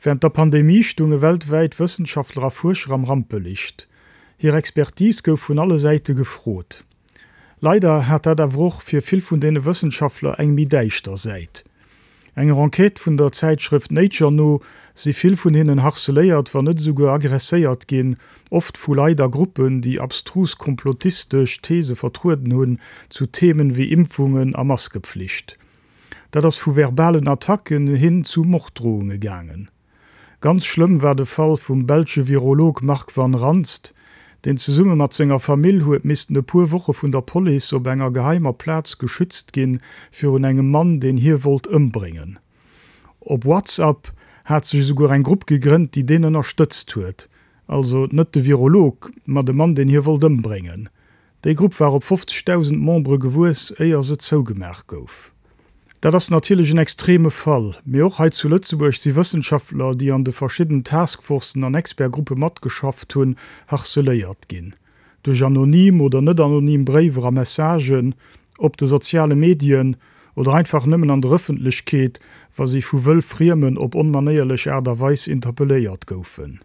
Wärend der Pandemie stounge weltwäit Wëssenschaftler a Fuerscher am Rampeliicht. Hir Expertise gouf vun alle Säite gefrot. Leider hat dat awer och fir vill vun deene Wëssenschaftler eng méi däischter Säit. Enger Enquête vun der Zäitschrëft Nature no si vill vun hinnen harceléiert, wann net esouguer aggresséiert ginn, oft vu Leit a Gruppen, déi abstrus komplotistesch These vertrueden hunn zu Themen wéi Impfungen a Maskepflicht. Dat ass vu verbalen Attacken hin zu Morddrohunge gaangen. Ganz schlëmm war de Fall vum belsche Virolog Marc Van Ranst, deen zesumme mat senger Famill huet missten e puer Woche vun der Police op enger geheimer Plaz geschützt ginn virun engem Mann, deen hie wollt ëmbréngen. Op WhatsApp hat sech esouguer eng Grupp gegrënnt, déi deen ënnerstëtzt huet. Also net de Virolog, ma de Mann, deen hie wollt ëmbréngen. Déi Grupp war op 50.000 Membere gewuess, éier se zougemaach gouf. Dat ass natierlech en extreme Fall, mee och hei zu Lëtzebuerg si Wëssenschaftler, déi an de verschidden Taskforcen an Expertgruppe matgeschafft hunn, harceléiert ginn. Duerch anonym oder net anonym Bréiwer a Messagen, op de soziale Medien oder einfach nëmmen an der Ëffentlechkeet, wa si vu wëll Friemen op onmanéierlech Aart a Weis interpelléiert goufen.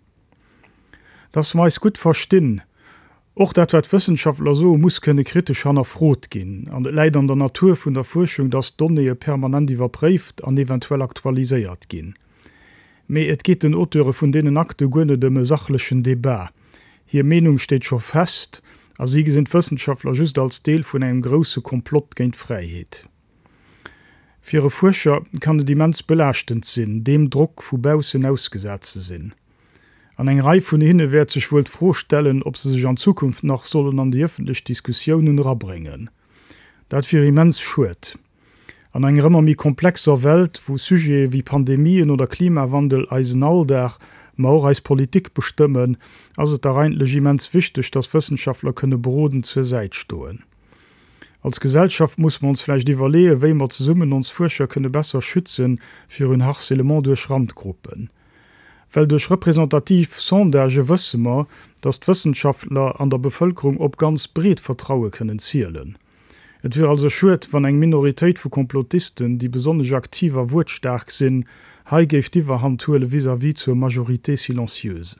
Dass mer eis gutt verstinn, Och dat wat Wëssenschaftler soen, muss kënne kritesch hannerfrot ginn. An et läit an der Natur vun der Fuerschung, dass d'Donnéeë permanent iwwerpréift an eventuell aktualiséiert ginn. Mee et geet den Auteure vun deenen Akte guer net ëm e sachlechen Debat. Hir Meenung steet scho fest a si gesinn d'Wëssenschaftler just als Deel vun engem grousse Komplott géint d'Fräiheet. Fir e Fuerscher kann et immens belaaschtend sinn, deem Drock vu baussen ausgesat ze sinn. An eng Rei vun hinne wäert sech wuel d'Fro stellen, ob se sech an Zukunft nach sollen an déi ëffentlech Diskussiounen erabréngen. Dat wier immens schued. An enger ëmmer méi komplexer Welt, wou Sujete wéi Pandemien oder Klimawandel eisen Alldag, ma och eis Politik bestëmmen, ass et dach eigentlech immens wichteg, dass Wëssenschaftler kënne berodend zur Säit stoen. Als Gesellschaft musse mer ons vläicht iwwerleeën, wéi mer zesummen ons Fuerscher kënne besser schützen virun Harcèlement duerch Randgruppen. Well duerch representativ Sondagë wësse mer, datt d'Wëssenschaftler an der Bevëlkerung op ganz breet Vertraue kënnen zielen. Et wier also schued, wann eng Minoritéit vu Komplotisten, déi besonnesch aktiv a wuertstaark sinn, hei géif d'Iwwerhand huele vis-à-vis zur Majorité silencieuse.